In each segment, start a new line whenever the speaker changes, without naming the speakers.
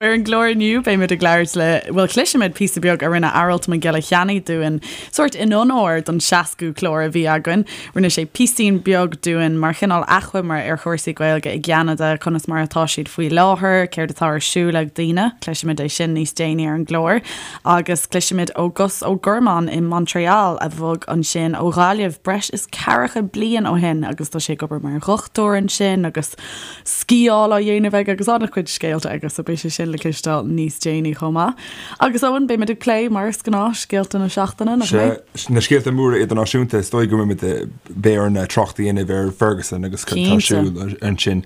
Ar an gclár inniu, beimid ag labhairt le, bhuel, cloisfimid píosa beag a rinne Aralt Mac Giolla Cheannaigh dúinn, sórt in onóir don 60ú clár a bhí againn. Rinne sé píosín beag dúinn mar chineál achoimre ar chúrsaí Gaeilge i gCeanada, conas mar atá siad faoi láthair, céard atá ar siúl ag daoine. Cloisfimid é sin níos déanaí ar an gclár. Agus cloisfimid ó Gus Ó Gormáin i Montréal, a bhog ansin ó Ghaillimh breis is ceathracha bliain ó shin agus tá sé ag obair mar dhochtúir ansin agus sciáil á dhéanamh aige agus an-chuid scéalta aige so beidh sé sin le cloisteáil níos déanaí chomh maith. Agus Eoin, beimid ag plé, mar is gnáth, scéalta na seachtaine, nach mbeidh?
Sea, na scéalta móra idirnáisiúnta, is dóigh go mbeimid, beidh orainn trácht a dhéanamh ar Ferguson agus cad atá ar siúl ansin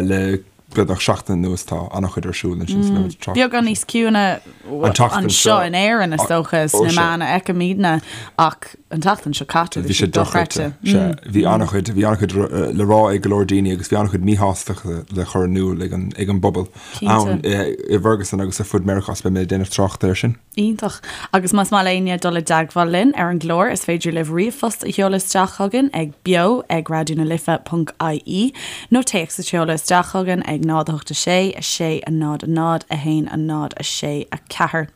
le beagnach seachtain anuas, tá an-chuid ar siúl ansin so beimid ag
trácht. Beagán níos ciúine anseo in Éirinn is dócha, sna meáin a fheicimidne ach an tseachtain seo caite,
bhí sé dochreidte. Sea, bhí an-chuid, bhí an-chuid le rá ag go leor daoine agus bhí an-chuid míshástachta le cur in iúl ag an, ag an bpobal ann i bhFerguson agus ar fud Meiriceá, so beidh mé ag déanamh trácht air sin.
Iontach. Agus más maith le éinne dul i dteagmháil linn ar an gclár, is féidir libh ríomhphost a sheoladh isteach chugainn ag beo ag raidió na life ponc ie nó téacs a sheoladh isteach chugainn ag 0 8 6 6 0 0 1 0 6 4.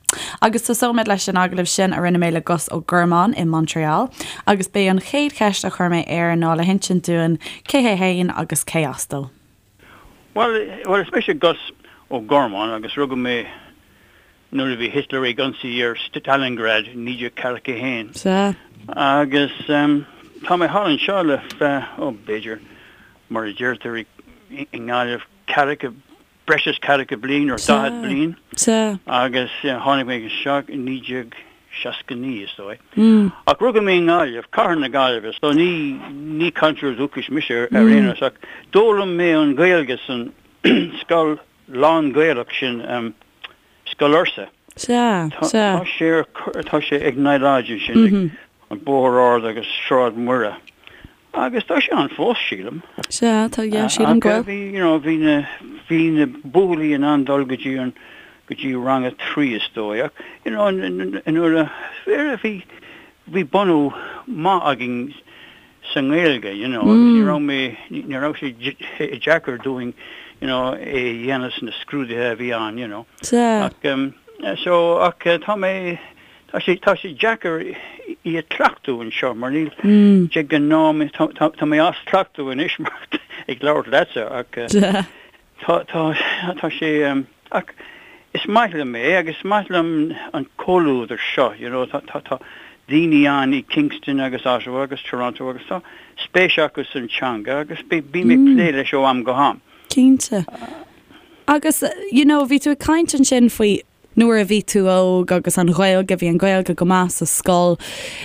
Agus tosóimid leis an agallamh sin a rinne mé le Gus Ó Gormáin i Montréal agus b'é an chéad cheist a chuir mé air ná le hinsint dúinn cé hé fhéin agus cé as dó.
Bhuel, bhuel, is mise Gus Ó Gormáin agus rugadh mé nuair a bhí Hitler ag ionsaí ar Stalingrad i 1941.
Sea.
Agus tá mé thall anseo le feadh, ó, b'fhéidir, mar a deirtear i nGaillimh, ceathracha breis is ceathracha bliain nó 40 bliain agus tháinig mé anseo i 1969 is dóigh. Ach rugadh mé i nGaillimh, cathair na Gaillimhe, so ní ní cainteoir dúchais mise ar aon nós ach d'fhoghlaim mé an Ghaeilge san scoil lán-Ghaelach sin, Scoil Fhursa.
Sea, sea.
Tá sé ar, tá sé ag Nile Lodge ansin, ag an Bóthar Ard agus Sráid Mhuire. Agus tá sé ann fós, sílim.
Sea, tá, yeah, sílim go bhfuil.
Ach bhí, you know, bhí na, bhí na buachaillí in ann dul go dtí an, go dtí rang a trí is dóigh. Ach, you know, nuair a, bhí, bhí bunú maith againn sa nGaeilge, you know, agus ní raibh mé, ní raibh sé deacair dúinn, you know, é a dhéanamh sna scrúduithe a bhí ann, you know.
Sea.
Ach, so, ach tá mé, Tá sé, tá sé deacair í a chleachtadh anseo mar níl, de ghnáth, tá, tá, tá mé as cleachtadh anois mar ag labhairt leatsa ach tá, tá, tá sé, ach is maith liom é agus is maith liom an comhluadar seo, you know, tá, tá, tá daoine ann i Kingston agus Ottawa agus Toronto agus tá spéis acu san teanga agus bím ag plé leis ó am go ham.
Cinnte. Agus, you know, bhí tú ag caint ansin faoi Nuair a bhí tú óg agus an Ghaeilge, bhí an Ghaeilge go maith sa scoil.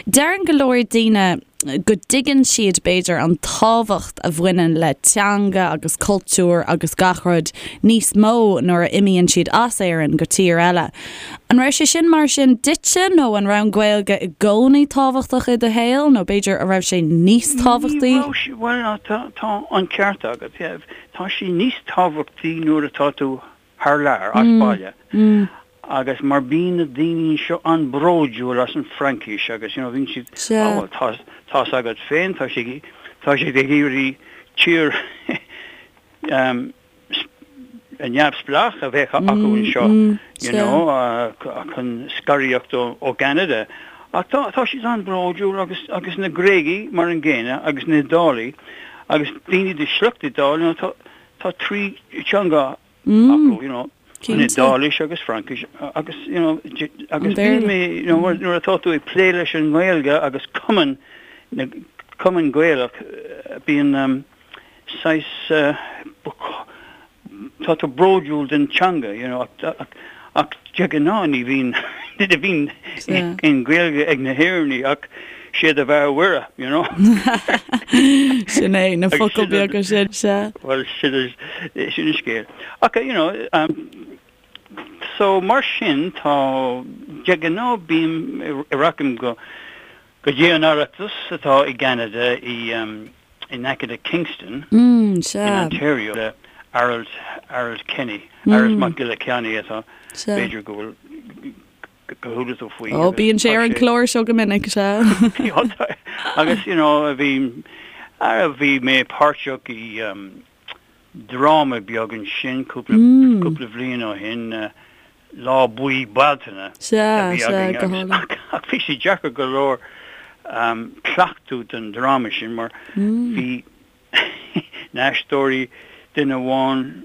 Deireann go leor daoine go dtuigeann siad, b'fhéidir, an tábhacht a bhaineann le teanga agus cultúr agus gach rud níos mó nuair a imíonn siad as Éirinn go tír eile. An raibh sé sin mar sin duitse nó an raibh an Ghaeilge i gcónaí tábhachtach i do shaol nó b'fhéidir an raibh sé níos tábhachtaí?
Ní raibh sé, bhuel, tá an ceart agat, tá sé níos tábhachtaí nuair atá tú thar lear, as baile, agus mar bíonn na daoine anseo an-bhródúil as an Fraincis agus you know bíonn siad, ah bhuel tá, tá's agat féin, tá siad, tá siad ag iarraidh tír neamhspleách a bheith acu anseo, you know, chun scaradh ó Cheanada. Ach tá, tá siad an-bhródúil agus, agus na Gréagaigh mar an gcéanna agus na hIodálaigh agus daoine de shliocht Iodáil, you know, tá, Tá trí teanga acu, you know, an Iodáilis agus Fraincis agus, you know, agus bíonn mé, you know, nuair atá tú ag plé leis an nGaeilge agus cumann, na cumann Gaelach, bíonn saghas, tá tú bródúil den teanga, you know, ach, ach de ghnáth ní bhíonn, ní bhíonn aon Ghaeilge ag na hÉireannaigh ach Sé do bheatha Mhuire, you know.
Sin é, na focail beaga sin, sea.
Bhuel, sin sin an scéal. Ach, you know, um, so mar sin tá, de ghnáth bím, rachaim go, go dtí an Oireachtas atá i gCeanada i, um, in aice le Kingston,
mm, sea.
in Ontario, le Aralt, Aralt Kenny, Aralt Mac Giolla Cheannaigh atá, b'fhéidir go bhfuil, gur chuala tú faoi.
Ó, bíonn sé ar an chlár seo go minic, sea.
Agus, you know, bhí, bhí mé páirteach i um, dráma beag ansin cúpla cúpla bhliain ó shin, Lá Buí Bealtaine a bhí againn agus ach bhí sé deacair go leor cleachtadh don dráma sin mar bhí na haisteoirí, duine amháin,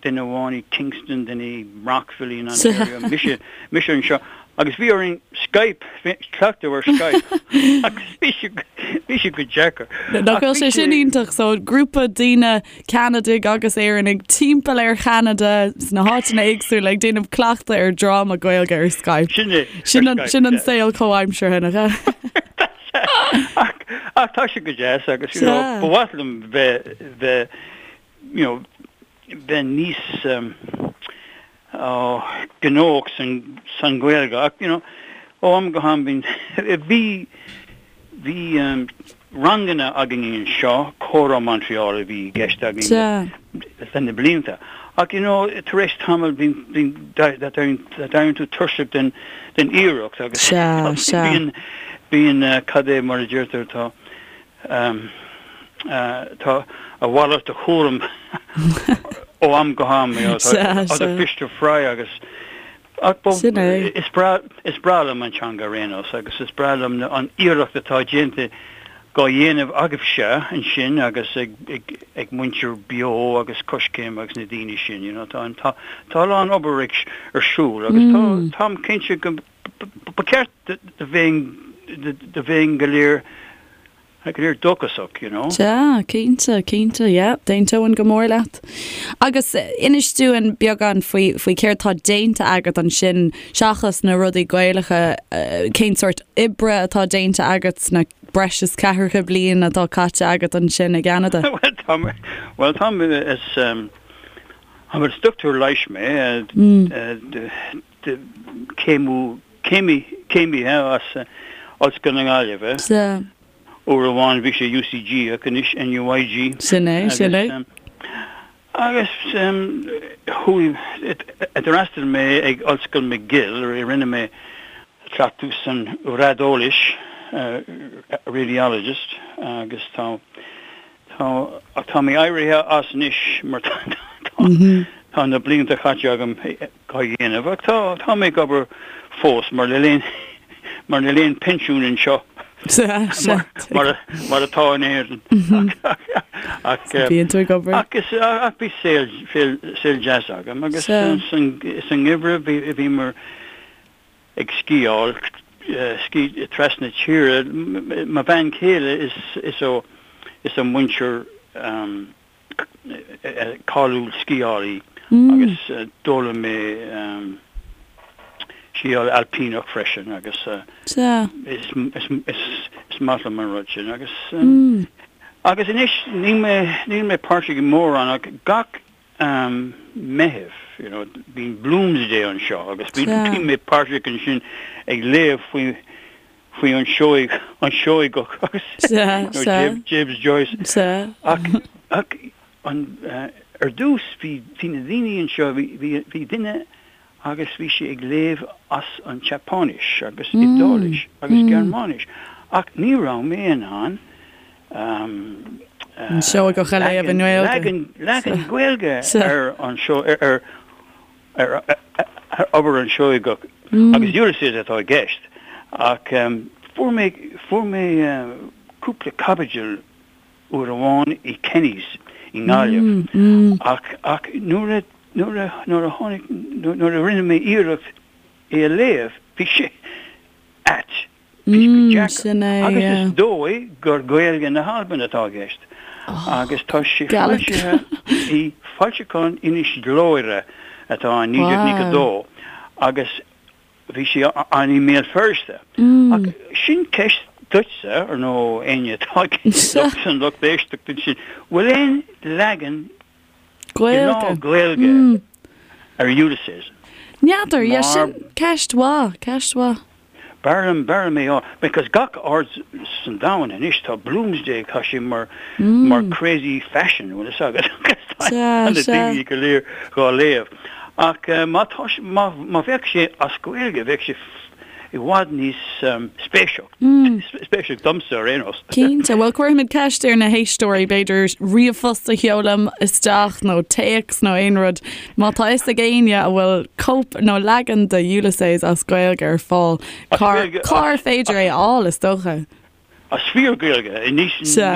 duine amháin i Kingston, duine i Brockville in Ontario, mise, mise anseo agus bhí orainn Skype, cleachtadh ar Skype agus bhí sé, bhí sé go deacair.
Nach bhfuil sé sin iontach, so grúpa daoine Ceanadaigh agus Éireannaigh timpeall ar Cheanada sna háiteanna éagsúla ag déanamh cleachtadh ar dráma Gaeilge ar Skype.
Sin é,
Sin an, sin an saol comhaimseartha, nach
ea? Ach, ach tá sé go deas agus, you know, ba mhaith liom bheith, bheith, you know, bheith níos um, oh, gnóthach san, san Ghaeilge ach, you know, ó am go ham bíonn, bhí, bhí um, ranganna againn anseo, Comhrá Montreal a bhí i gceist againn le na blianta. Ach, you know, tar éis tamaill bíonn, bíonn, d'éiríonn tú tuirseach den, den iarracht agus bíonn, bíonn, cad é mar a deirtear, tá, tá a mhalairt de chúram ó am go ham, you know, tá other fish to fry agus, ach is breá, is breá liom an teanga ar aon nós agus is breá liom an iarracht atá déanta dhá dhéanamh agaibhse ansin agus ag, ag, ag muintir Beo agus Coiscéim agus na daoine sin, you know, tá an, tá, tá a lán obair ag, ar siúl agus tá, táim cinnte go, ba cheart do bheinn, do bheinn go léir Go léir dóchasach, you know.
Sea, cinnte, cinnte, yeah, d'aontóinn go mór leat. Agus inis dúinn beagán faoi, faoi céard tá déanta agat ansin, seachas na rudaí Gaelacha, cén sórt oibre atá déanta agat sna breis is ceathracha bliain atá caite agat ansin i gCeanada?
Bhuel, tá mé, bhuel, tá mé, is, is dochtúir leighis mé, céimiú, céimí, céimithe as Ollscoil na Gaillimhe.
Sea.
Uair amháin bhí sé UCG ach anois NUIG.
Sin é, sin é.
Agus chuaigh, d'fhreastail mé ag Ollscoil McGill, rinne mé cleachtadh san raideolaís, radiologist, agus tá, Tá, ach tá mé éirithe as anois mar tá tá na blianta caite agam dhá dhéanamh ach tá tá mé ag obair fós mar níl aon mar níl aon pinsiún anseo mar mar mar atá in Éirinn ach
Bíonn tú ag obair.
ach is ach bhí saol saol saol deas agam agus san san ngeimhreadh bhí bhíomar ag sciáil, ski, trasna tíre. Mo bhean chéile is is ó is ó muintir cáiliúil sciálaí agus d'fhoghlaim mé sciáil ailpíneach freisin agus is is is maith liom an rud sin agus agus anois níl mé níl mé páirteach i mórán ach gach Meitheamh, you know, bíonn Bloomsday anseo agus bíonn mé páirteach ansin ag léamh faoi faoi an Seoigh, an Seoigeach agus James Joyce. Ach ach an ar dtús bhí bhí na daoine anseo bhí bhí bhí duine agus bhí sé ag léamh as an tSeapáinis agus Iodáilis agus Gearmáinis ach ní raibh mé in ann
An Seoigeach a léamh i
nGaeilge. Leagan Gaeilge ar an ar ar obair an Seoigeach agus Ulysses atá i gceist ach fuair mé fuair mé cúpla caibidil uair amháin i Kenny's i nGaillimh ach ach nuair a nuair a nuair a tháinig nuair a rinne mé iarracht é a léamh bhí sé ait. Bhí sé go deacair. Agus is dóigh gur Gaeilge na hAlban atá i gceist. Agus tá sé foilsithe i foilseachán Inis Gluaire atá in 1992 agus bhí sé ann i mBéal Feirste. Ach sin ceist duitse, ar nó éinne atá san lucht éisteachta ansin, bhfuil aon leagan
Gaeilge.
Gaeilge ar Ulysses.
N'fheadar, yeah, sin ceist mhaith, ceist mhaith.
B'fhearr liom, b'fhearr liom é a fháil, because gach aird san domhan anois tá Bloomsday, tá sé mar, mar crazy fashion, bhfuil fhios agat, tá na daoine go léir dhá léamh. Ach má tá, má, má bheadh sé as Gaeilge, bheadh sé. i bhfad níos spéisiúil, spéisiúil domsa ar aon nós.
Cinnte. Bhuel, cuirfimid ceist ar na héisteoirí, b'fhéidir ríomhphost a sheoladh isteach nó téacs nó aon rud. Má tá fhios ag éinne a bhfuil cóip nó leagan de Ulysses as Gaeilge ar fáil, cár féidir é a fháil, is dócha?
As fíor-Ghaeilge, ní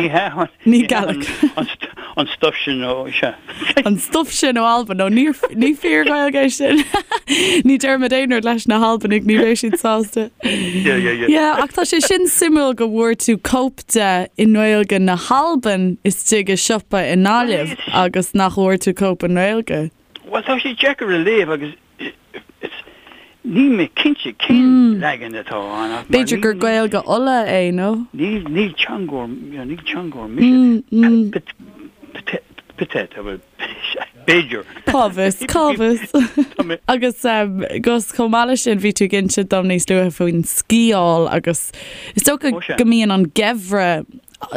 hea
Ní Gaelic.
an stuif sin ó, sea.
An stuif sin ó Albain, nó ní ní fíor-Ghaeilge é sin. Ní déarfaimid aon rud leis na hAlbanaigh, ní bheidh siad sásta.
Yeah, yeah, yeah.
Yeah, ach tá sé sin suimiúil go bhfuair tú cóip de i nGaeilge na hAlban istigh i siopa i nGaillimh agus nach bhfuair tú cóip i nGaeilge.
Bhuel, tá sé deacair a léamh agus Níl mé cinnte cén leagan atá ann
ach mar B'fhéidir gur Gaeilge Uladh é, nó?
Ní ní teangóir ní teangóir mise. Peut-être, bhuel, b'fhéidir.
Cá bhfios, cá bhfios. Agus Gus, chomh maith leis sin, bhí tú ag inse dom níos luaithe faoin sciáil agus is dócha go mbíonn an geimhreadh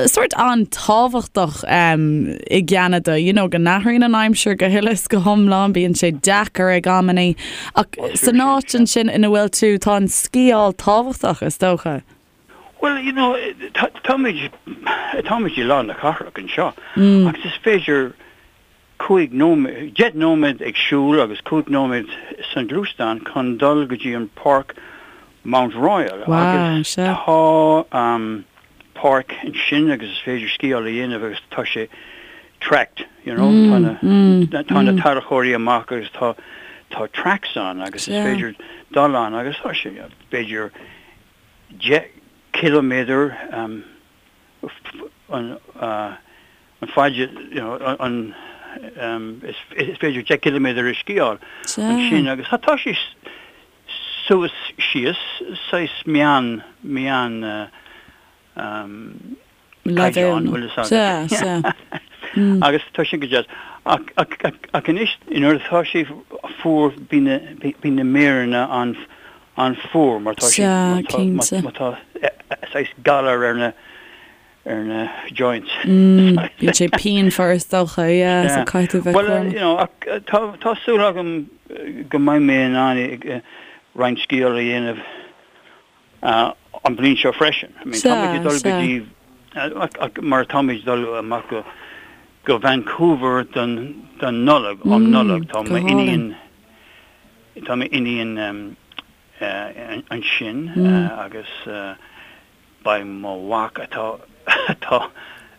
sórt an-tábhachtach i gCeanada, you know, go n-athraíonn an aimsir go huile is go hiomlán, bíonn sé deacair ag amannaí, ach san áit ansin ina bhfuil tú, tá an sciáil tábhachtach, is dócha.
Bhuel, you know, táimid, táimid i lár na cathrach anseo agus is féidir 5 nóiméad, 10 nóiméad ag siúl agus 5 nóiméad sa ghluaisteán chun dul go dtí an páirc Mount Royal agus tá páirc ansin agus is féidir sciáil a dhéanamh agus tá sé tracked, you know, tá na tá na tarracóirí amach agus tá tá tracks ann agus is féidir dul ann agus tá sé b'fhéidir 10 ciliméadar an an faid you know an is féidir 10 ciliméadar a sciáil ansin agus tá sé suas síos saghas meán meán caighdeán bhfuil fhios agat. Agus tá sin go deas. Ach ach anois nuair atá sé fuar bíonn na bíonn na méireanna an an-fhuar mar tá sé má tá saghas galar ar na ar na joints.
Bíonn sé pianmhar is dócha, yeah, so caithfidh tú bheith
cúramach. Bhuel, you know, ach tá tá súil agam go mbeidh mé in ann roinnt sciáil a dhéanamh an bhliain seo freisin. I mean, táimid ag dul go dtí ach mar táimid ag dul amach go go Vancouver don don Nollaig, um Nollaig, tá m'iníon tá m'iníon ansin agus Beidh mo mhac atá atá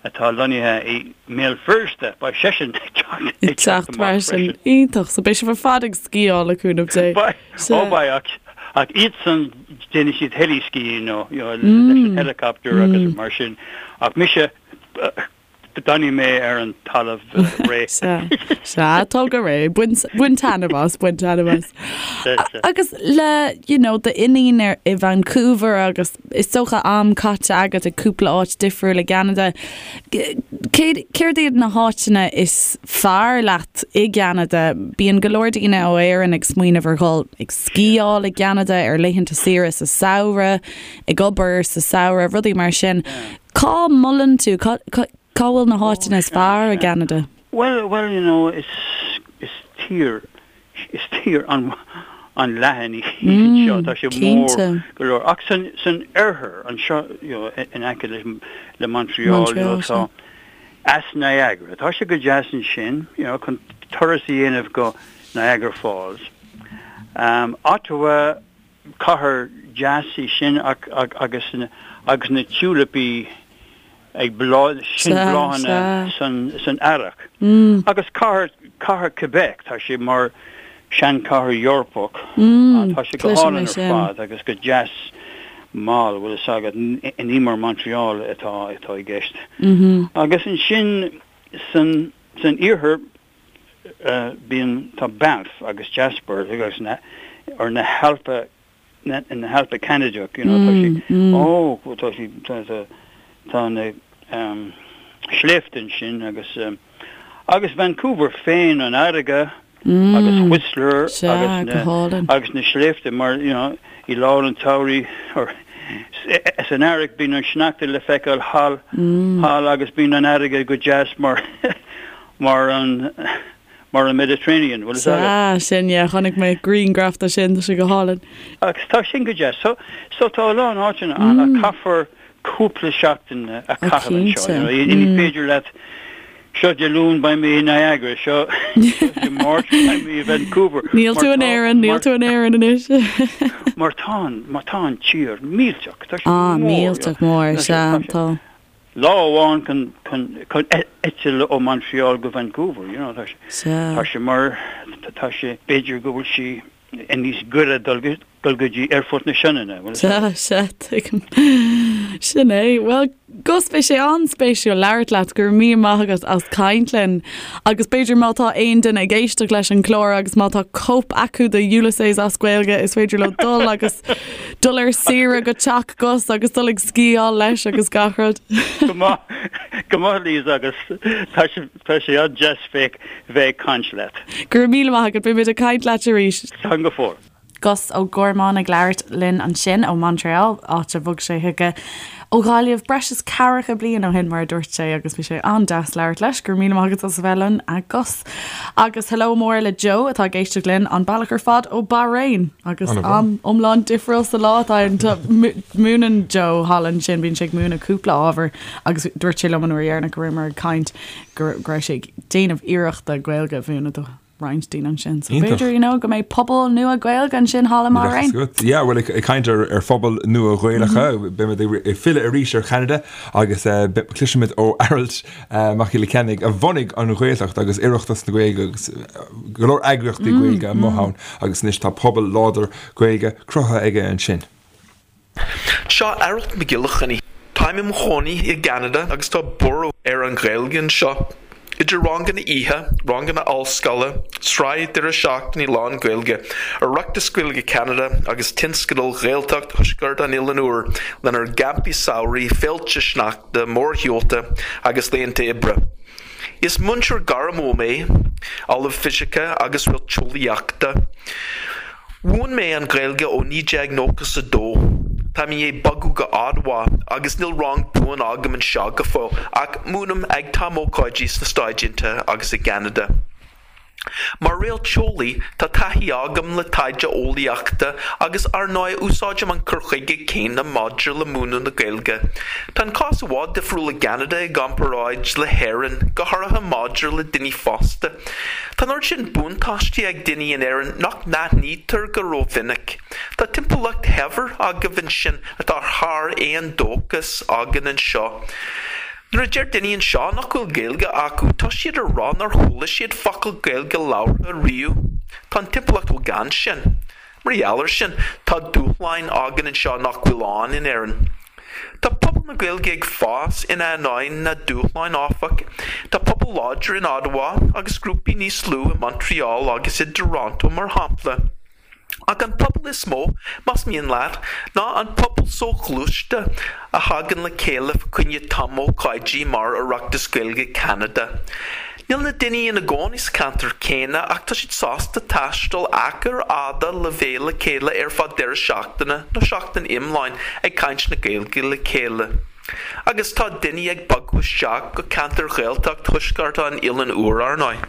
atá lonnaithe i mBéal Feirste, beidh seisean ag teacht
ag teacht amach freisin. Iontach. So beidh sibh ar fad ag sciáil le cúnamh Dé.
Beidh, ó beidh, ach ach iadsan déanfaidh siad heli-skiing nó you know leis an helicopter agus mar sin. Ach mise D'fhanfaidh mé ar an talamh
réidh. Sea, sea, tóg go réidh. Bain, bain taitneamh as, bain taitneamh as. Sea, sea. Agus le, you know, d'iníon ar, i Vancouver agus is dócha am caite agat i cúpla áit difriúil i gCeanada, céard, céard iad na háiteanna is fearr leat i gCeanada? Bíonn go leor daoine ó Éirinn ag smaoineamh ar dhul ag sciáil i gCeanada ar laethanta saoire sa samhradh, ag obair sa samhradh, rudaí mar sin. Cá molann tú, cá bhfuil na háiteanna is fearr i gCeanada?
Bhuel, bhuel, you know, is, is tír, is tír an, an-leathan í anseo, tá sé mór go leor. Ach san, san oirthear anseo, you know, in aice le, le Montreal, you know, tá Eas Niagara, tá sé go deas ansin, you know, chun turas a dhéanamh go Niagara Falls. Um, Ottawa, Cathair deas í sin ach agus agus na tiúilipí ag bláth, sin bláthanna san san earrach. Agus cathair cathair Quebec, tá sé mar seanchathair Eorpach, tá sé go hálainn ar fad agus go deas mall, bhfuil fhios agat, ní mar Montreal atá atá i gceist. Agus ansin san san iarthar Bíonn, tá Banff agus Jasper agus na, or na hAlpa, na, na hAlpa Ceanadach, you know, tá siad, ó, tá siad, tá, tá, tá na um, sléibhte ansin agus um, agus Vancouver féin, an fharraige agus Whistler agus na, agus na sléibhte mar, you know, i lár an tsamhraidh, or san earrach bíonn an sneachta le feiceáil thall, thall agus bíonn an fharraige go deas mar mar an. mar an Mediterranean, bhfuil fhios agat.
Sea, sin, yeah, chonaic mé grianghraf de sin, tá sé go hálainn.
Agus tá sin go deas. So, so tá a lán áiteanna ann ach caithfear cúpla seachtain a chaitheamh anseo, you know, ní féidir leat, seo Dé Luain beidh mé i Niagara, seo Dé Máirt beidh mé i Vancouver.
Níl tú in Éirinn, níl tú in Éirinn anois.
Mar tá an, mar tá an tír millteach, tá
sé mór. Ah, millteach mór, sea, tá.
Lá amháin chun, chun, chun eitilt ó Montreal go Vancouver, you know, tá sé, tá sé mar, tá sé, b'fhéidir go bhfuil sí níos gaire dul go, dul go dtí Aerfort na Sionainne,
bhfuil Sea, sea, tuigim. Sin é. Bhuel, Gus, bhí sé an-spéisiúil labhairt leat, go raibh míle maith agat as caint linn. Agus b'fhéidir má tá aon duine ag éisteacht leis an gclár agus má tá cóip acu de Ulysses as Gaeilge, is féidir leo dul agus dul ar saoire go teach Gus agus dul ag sciáil leis agus gach rud.
Go maith, go maith Liz agus tá sé, tá sé an-deas bheith, bheith ag caint leat.
Go raibh míle maith agat, beidh muid ag caint leat arís.
Slán go fóill.
Gus Ó Gormáin ag labhairt linn ansin ó Montreal, áit a bhog sé chuige ó Ghaillimh breis is ceathracha bliain ó shin, mar a dúirt sé, agus bhí sé an-deas labhairt leis. Go raibh míle maith agat as a bheith linn, a Gus. Agus hello mór le Joe atá ag éisteacht linn an bealach ar fad ó Bahrain agus am iomlán difriúil sa lá atá ann. Múineann Joe thall ansin, bíonn sé ag múineadh cúpla ábhar agus dúirt sé liom an uair dheireanach go rabhamar ag caint go raibh sé ag déanamh iarrachta Gaeilge a mhúineadh do roinnt daoine ansin. So b'fhéidir, you know, go mbeidh pobal nua Gaeilge ansin thall i mBahrain.
Yeah, bhuel, ag caint ar ar phobail nua Ghaelacha, beimid ag filleadh arís ar Cheanada agus cloisfimid ó Aralt Mac Giolla Cheannaigh a bhunaigh an Ghaeltacht agus Oireachtas na Gaeilge agus go leor eagraíochtaí Gaeilge amuigh ann agus anois tá pobal láidir Gaeilge cruthaithe aige ansin.
Seo Aralt Mac Giolla Chainnigh. Táim i mo chónaí i gCeanada agus tá borradh ar an Ghaeilge anseo. Idir ranganna oíche, ranganna ollscoile, sraith deireadh seachtaine lán-Ghaeilge, Oireachtas Gaeilge Cheanada agus tionscadal Ghaeltacht Thuaisceart an Oileáin Úir lenár gcampaí samhraidh, féilte sneachta, mórshiúlta agus laethanta oibre. Is múinteoir gairmiúil mé, Ollamh Fisice agus Réalteolaíochta. Mhúin mé an Ghaeilge ó 1992. Táim i ndiaidh bogadh go Ottawa agus níl rang buan agam anseo go fóill ach múinim ag tumócáidí sna Stáit Aontaithe agus i gCeanada. Mar réalteolaí, tá taithí agam le taighde eolaíochta agus ar ndóigh úsáidim an cur chuige céanna maidir le múineadh na Gaeilge. Tá an cás i bhfad difriúil i gCeanada i gcomparáid le hÉirinn, go háirithe maidir le daoine fásta. Tá an oiread sin buntáistí ag daoine in Éirinn nach n-aithnítear go rómhinic. Tá timpeallacht shaibhir agaibh ansin atá thar aon dóchas againn anseo. Nuair a deir daoine anseo nach bhfuil Gaeilge acu, tá siad ag rá nár chuala siad focal Gaeilge labhartha riamh. Tá an timpeallacht chomh gann sin. Mar gheall air sin, tá dúshláin againn anseo nach bhfuil ann in Éirinn. Tá pobal na Gaeilge ag fás in ainneoin na dúshláin, áfach. Tá pobal láidir in Ottawa agus grúpaí níos lú i Montreal agus i dToronto, mar shampla. Ach an pobal is mó, más mian leat, ná an pobal soghluaiste a thagann le chéile fa choinne tumócáidí mar Oireachtas Gaeilge Cheanada. Níl na daoine ina gcónaí sa cheantar céanna ach tá siad sásta taisteal achair fhada le bheith le chéile ar feadh deireadh seachtaine nó seachtain iomláin ag caint na Gaeilge le chéile. Agus tá daoine ag bogadh isteach go ceantair Ghaeltacht Thuaisceart an Oileáin Úir, ar ndóigh.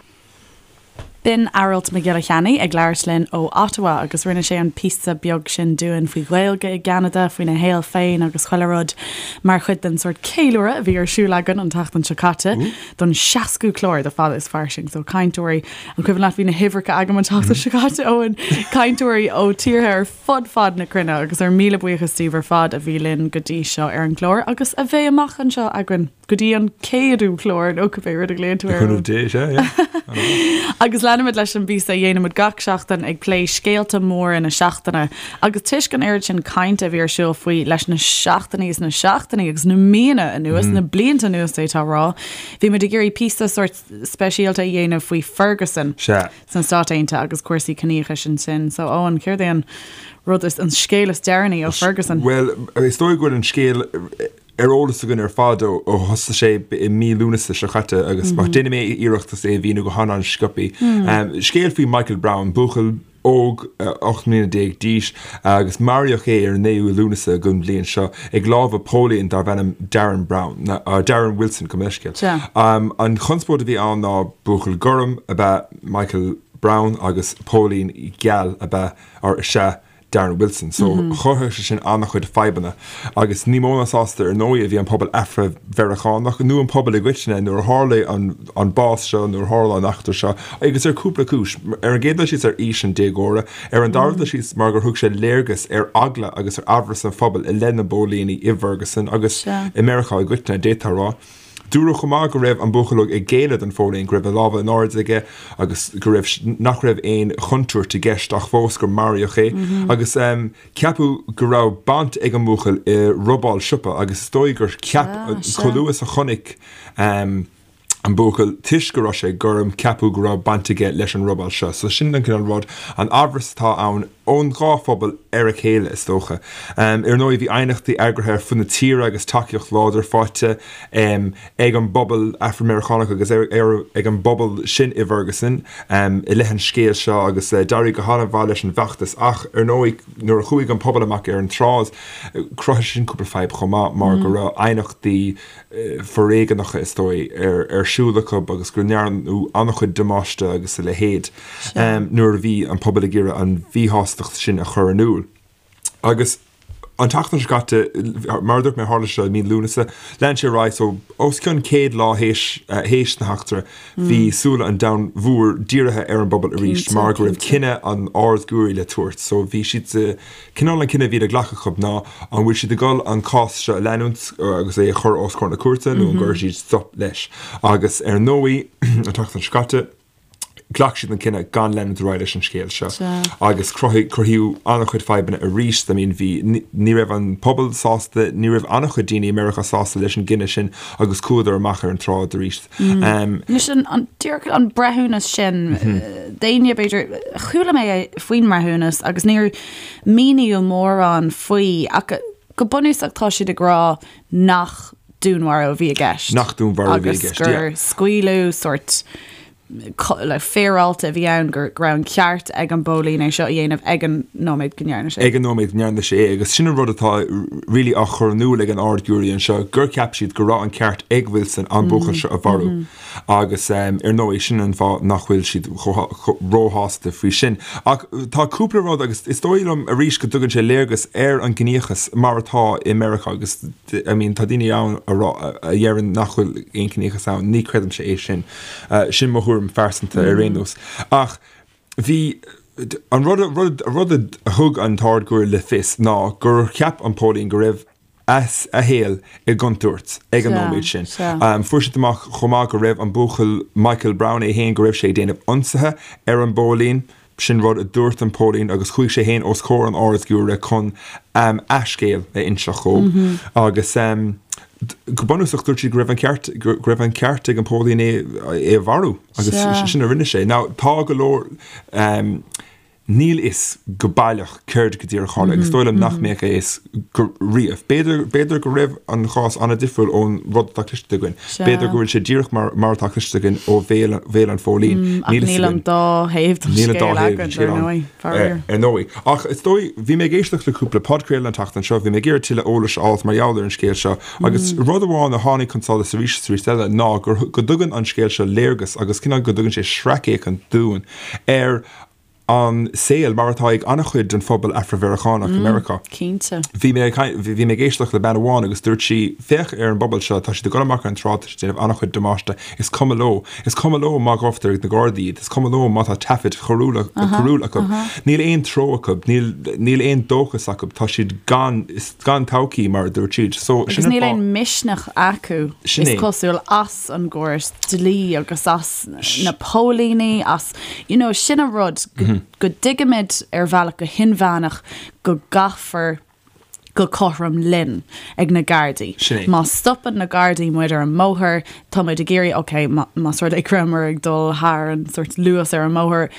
B'in Aralt Mac Giolla Cheannaigh ag labhairt linn ó Ottawa agus rinne sé an píosa beag sin dúinn faoi Ghaeilge i gCeanada, faoina shaol féin agus chuile rud mar chuid den sórt ceiliúradh a bhí ar siúl againn an tseachtain seo caite don seascú clár de Fada is Fairsing. So cainteoirí, an cuimhin leat bhí na huimhreacha agam an tseachtain seo caite, Eoin, cainteoirí ó tíortha ar fud fad na cruinne agus ár míle buíochas daoibh ar fad a bhí linn go dtí seo ar an gclár agus a bheidh amach anseo againn. go dtí an céadú clár nó cibé rud a ghlaonn tú air.
Cúnamh Dé, sea, yeah.
Agus leanaimid leis an bpíosa a dhéanaimid gach seachtain ag plé scéalta móra na seachtaine. Agus toisc an oiread sin cainte a bhí ar siúl faoi leis na seachtainí is na seachtainí agus na míonna anuas, na blianta anuas d'fhéadfá a rá, bhí muid ag iarraidh píosa sórt speisialta a dhéanamh faoi Ferguson.
Sea.
sna Stáit Aontaithe agus cúrsaí ciníochais ansin. So, Eoin, céard é an rud is, an scéal is deireanaí ó Ferguson?
Bhuel, is dóigh go bhfuil an scéal ar eolas againn ar fad ó thosaigh sé i mí Lúnasa seo caite agus déanfaidh mé iarracht é a mhíniú go han-an-sciobtha. Scéal faoi Michael Brown, buachaill óg, 18 mbliana d'aois, agus maraíodh é ar an 9ú Lúnasa den bhliain seo ag lámha póilín darbh ainm Darren Brown, Darren Wilson, gabh mo leithscéal. An chonspóid a bhí ann ná buachaill gorm ab ea Michael Brown agus póilín geal ab ea, or is ea, Darren Wilson. So chruthaigh sé sin an-chuid fadhbanna agus ní mó ná sásta ar ndóigh a bhí an pobal Afra-Mheiriceánach nó an pobal i gcoitinne nuair a tharla an bás seo, nuair a tharla an eachtra seo agus ar cúpla cúis. Ar an gcéad dul síos ar aois an déagóra, ar an dara dul síos mar gur thug sé léargas ar eagla agus ar amhras an phobail i leith na bpóilíní i bhFerguson agus i Meiriceá i gcoitinne, d'fhéadfá a rá. Dúradh chomh maith go raibh an buachaill óg ag géilleadh don phóilín, go raibh a lámha in airde aige agus go raibh, nach raibh aon chontúirt i gceist ach fós gur maraíodh é. Agus ceapadh go raibh baint ag an mbuachaill i robáil siopa agus is dóigh gur cheap, chomh luath is a chonaic an buachaill, toisc go raibh sé gorm, ceapadh go raibh baint aige leis an robáil seo. So sin an cineál rud, an amhras atá ann. ón dhá phobal ar a chéile, is dócha. Ar ndóigh, bhí aighneachtaí eagraithe ar fud na tíre agus tacaíocht láidir faighte ag an bpobal Afra-Meiriceánach agus ag an bpobal sin i bhFerguson i leith an scéil seo agus d'éirigh go han-mhaith leis an bhfeachtas. Ach, ar ndóigh, nuair a chuaigh an pobal amach ar an tsráid, chruthaigh sin cúpla fadhb chomh maith mar go raibh aighneachtaí foréigeanacha, is dóigh, ar siúl acu agus go ndearnadh an-chuid damáiste agus a leithéid nuair a bhí an pobal ag iarraidh an mhíshástacht sin a chur in iúl. Agus an tseachtain seo caite, mar a dúirt mé, tharla sé i mí Lúnasa, lean sé ar aghaidh, so os cionn 100 lá théis na heachtra, bhí súile an domhain mhóir dírithe ar an bpobal arís mar go raibh cinneadh an Ard-Ghiúiré le tabhairt. So bhí siad sa Cineál an cinneadh a bhí le glacadh acu ná an bhfuil siad ag dul an cás seo a leanúint agus é a chur os comhair na cúirte nó an gcuirfidh siad stop leis. Agus ar ndóigh, an tseachtain seo caite, ghlac siad an cinneadh gan leanúint ar aghaidh leis an scéal seo. Agus cruthaíodh an-chuid fadhbanna arís. I mean, bhí, ní raibh an pobal sásta, ní raibh an-chuid daoine i Meiriceá sásta leis an gcinneadh sin agus chuadar amach ar an tsráid arís.
Anois an díreach an breithiúnas sin, d'éinne b'fhéidir, chuala mé faoin mbreithiúnas agus níor míníodh mórán faoi ach go bunúsach tá siad ag rá nach dúnmharú a bhí i gceist.
Nach dúnmharú a bhí i gceist,
yeah. Agus gur scaoileadh sórt le féaráilte a bhí ann go raibh an ceart ag an bpóilín é seo a dhéanamh ag an nóiméad go ndearna sé.
Ag an nóiméad go ndearna sé é agus sin an rud atá really á chur in iúl ag an Ard-Ghiúiré anseo gur cheap siad go raibh an ceart ag Wilson an buachaill seo a mharú agus ar ndóigh sin an fáth nach bhfuil siad róshásta faoi sin. Ach tá cúpla rud agus is dóigh liom arís go dtugann sé léargas ar an gciníochas mar atá i Meiriceá agus I mean tá daoine ann a rá a dheireann nach bhfuil aon chiníochas ann, ní chreidimse é sin. Sin mo thuairim phearsanta ar aon nós. Ach bhí, an rud, rud, rud a thug an tArd-Ghiúiré le fios ná gur cheap an póilín go raibh a, a shaol i gcontúirt ag an nóiméad sin. Fuair siad amach chomh maith go raibh an buachaill Michael Brown é féin, go raibh sé ag déanamh ionsaithe ar an bpóilín. Sin rud a dúirt an póilín agus chuaigh sé féin os comhair an Ard-Ghiúiré chun a scéal a inseacht dhóibh agus go bunúsach dúirt siad go raibh an ceart, go raibh an ceart ag an póilín é é a mharú agus sin a rinne sé. Now tá go leor, níl fhios go baileach céard go díreach a tharla agus is dóigh liom nach mbeadh a fhios go riamh. B'fhéidir, b'fhéidir go raibh an chás an-difriúil ón rud atá cloiste againn. B'fhéidir go bhfuil sé díreach mar, mar atá cloiste againn ó bhéal, bhéal an phóilín.
Ach níl an dá thaobh den scéal againn, dar ndóigh,
faraor. Ar ndóigh. Ach is dóigh, bhí mé ag éisteacht le cúpla podchraoladh an tseachtain seo, bhí mé ag iarraidh tuilleadh eolais a fháilt mar gheall ar an scéal seo agus rud amháin a tháinig chun solais arís is arís eile ná gur, go dtugann an scéal seo léargas agus cineál go dtugann sé sracfhéachaint dúinn ar an saol mar atá ag an-chuid den phobal Afra-Mheiriceánach i Meiriceá.
Cinnte.
Bhí mé ag bhí mé ag éisteacht le bean amháin agus dúirt sí, féach ar an bpobal seo, tá siad ag dul amach ar an tsráid, tá siad ag déanamh an-chuid damáiste, is cuma leo, is cuma leo má ghabhtar ag na Gardaí iad, is cuma leo má tá taifid choiriúla coiriúil acu. Níl aon treo acu, níl níl aon dóchas acu, tá siad gan gan todhchaí mar a dúirt siad.
So sin Agus níl aon misneach acu, is cosúil, as an gcóras dlí agus as na póilíní, as, you know, sin an rud, go dtuigimid ar bhealach go hinmheánach go gcaithfear go cothrom linn ag na Gardaí.
Sin é.
Má stopann na Gardaí muid ar an mbóthar, tá muid ag iarraidh, ok, más rud é go rabhamar ag dul thar an sort luas ar an mbóthar,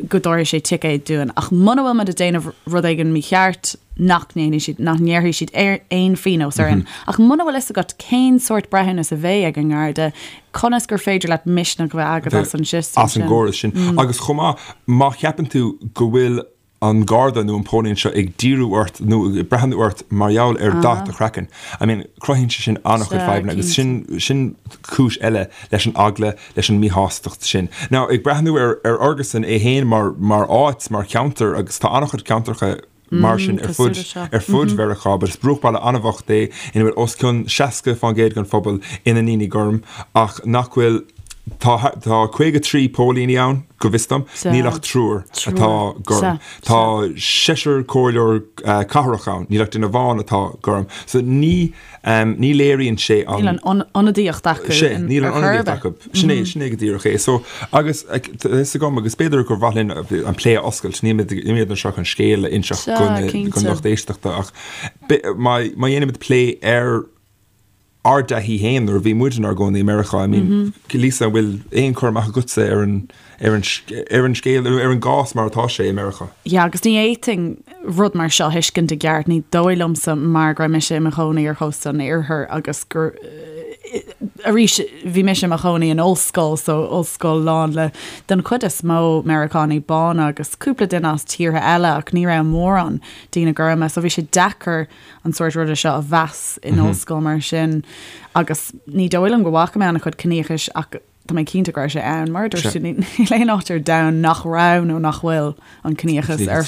go dtabharfaidh sé ticéad dúinn. Ach muna bhfuil muid ag déanamh rud éigin mícheart, nach ndéanfaidh siad, nach ngearrfaidh siad aon phíonós orainn. Ach muna bhfuil fhios agat cén sórt breithiúnas a bheidh ag an nGarda, conas gur féidir leat misneach a bheith agat as an
system sin? As an gcóras sin. Agus chomh maith, má cheapann tú go bhfuil an Garda nó an póilín seo ag díriú ort nó ag breathnú ort mar gheall ar dath do chraicinn. I mean, cruthaíonn sé sin an-chuid fadhbanna agus sin, sin cúis eile leis an eagla, leis an míshástacht sin. Now, ag breathnú ar, ar Fherguson é féin mar, mar áit, mar cheantar, agus tá an-chuid ceantracha mar sin ar fud, ar fud Mheiriceá, but is bruachbhaile an-bhocht é ina bhfuil os cionn 60% den phobal ina ndaoine gorm ach nach bhfuil, tá, tá 53 póilíní ann, go bhfios dom, níl ach triúr atá gorm. Tá seisear comhairleoir cathrach ann, níl ach duine amháin atá gorm. So ní, ní léiríonn sé
an. Níl an ionadaíocht acu.
Sea, níl an ionadaíocht acu. Sin é, sin é go díreach é. So, agus tá fhios agam, agus b'fhéidir gur mhaith linn an plé a oscailt, nílimid, nílimid anseo chun scéal a inseacht don lucht éisteachta ach má, má dhéanaimid plé ar ár dtaithí féin nuair a bhí muid inár gcónaí i Meiriceá, I mean, Lisa, an bhfuil aon chur amach agatsa ar an, ar an, ar an scéal, ar an gcás mar atá sé i Meiriceá?
Yeah, agus ní fhéadfainn rud mar seo a thuiscint i gceart, ní dóigh liomsa mar go raibh mise i mo chónaí ar chósta an iarthair agus gur, arís, bhí mise i mo chónaí in ollscoil, so ollscoil lán le, den chuid is mó, Meiriceánaigh bána agus cúpla duine as tíortha eile ach ní raibh mórán daoine gorma, so bhí sé deacair an sórt ruda seo a mheas in ollscoil mar sin agus ní dóigh liom go bhfaca mé an-chuid ciníochais ach tá mé cinnte go raibh sé ann. Mar a dúirt tú, níl aon áit ar domhan nach raibh nó nach bhfuil an ciníochas ar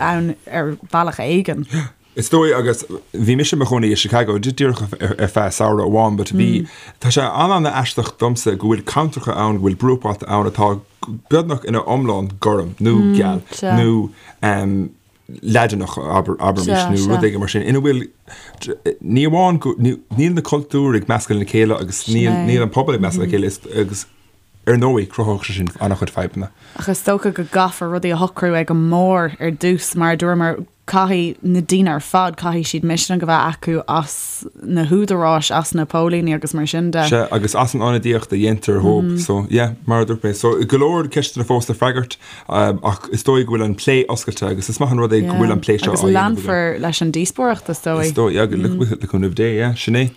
ann ar bhealach éigin.
Is dóigh agus bhí mise i mo chónaí i Chicago díreach ar feadh samhradh amháin but bhí tá sé an-an-aisteach domsa go bhfuil ceantracha ann, go bhfuil bruachbhailte ann atá beagnach ina iomlán gorm nó geal nó Laidineach, abraimis, nó rud éigin mar sin, ina bhfuil, ní amháin go, níl na cultúir ag meascadh lena chéile agus níl an pobal ag meascadh le chéile agus ar ndóigh cruthódh sé sin an-chuid fadhbanna.
Ach is dócha go gcaithfear rudaí a shocrú ag an mbarr ar dtús, mar a dúramar, caithfidh na daoine ar fad, caithfidh siad misneach a bheith acu as na húdaráis, as na póilíní agus mar sin de.
Sea, agus as an ionadaíocht a dhéantar dhóibh. So, yeah, mar a dúirt mé. So, go leor ceisteanna fós le freagairt. Ach is dóigh go bhfuil an plé oscailte agus is maith an rud é go bhfuil an plé seo
á dhéanamh againn. Agus leanfar leis an díospóireacht, is dóigh.
Is dóigh, yeah, le cúnamh Dé, yeah, sin é.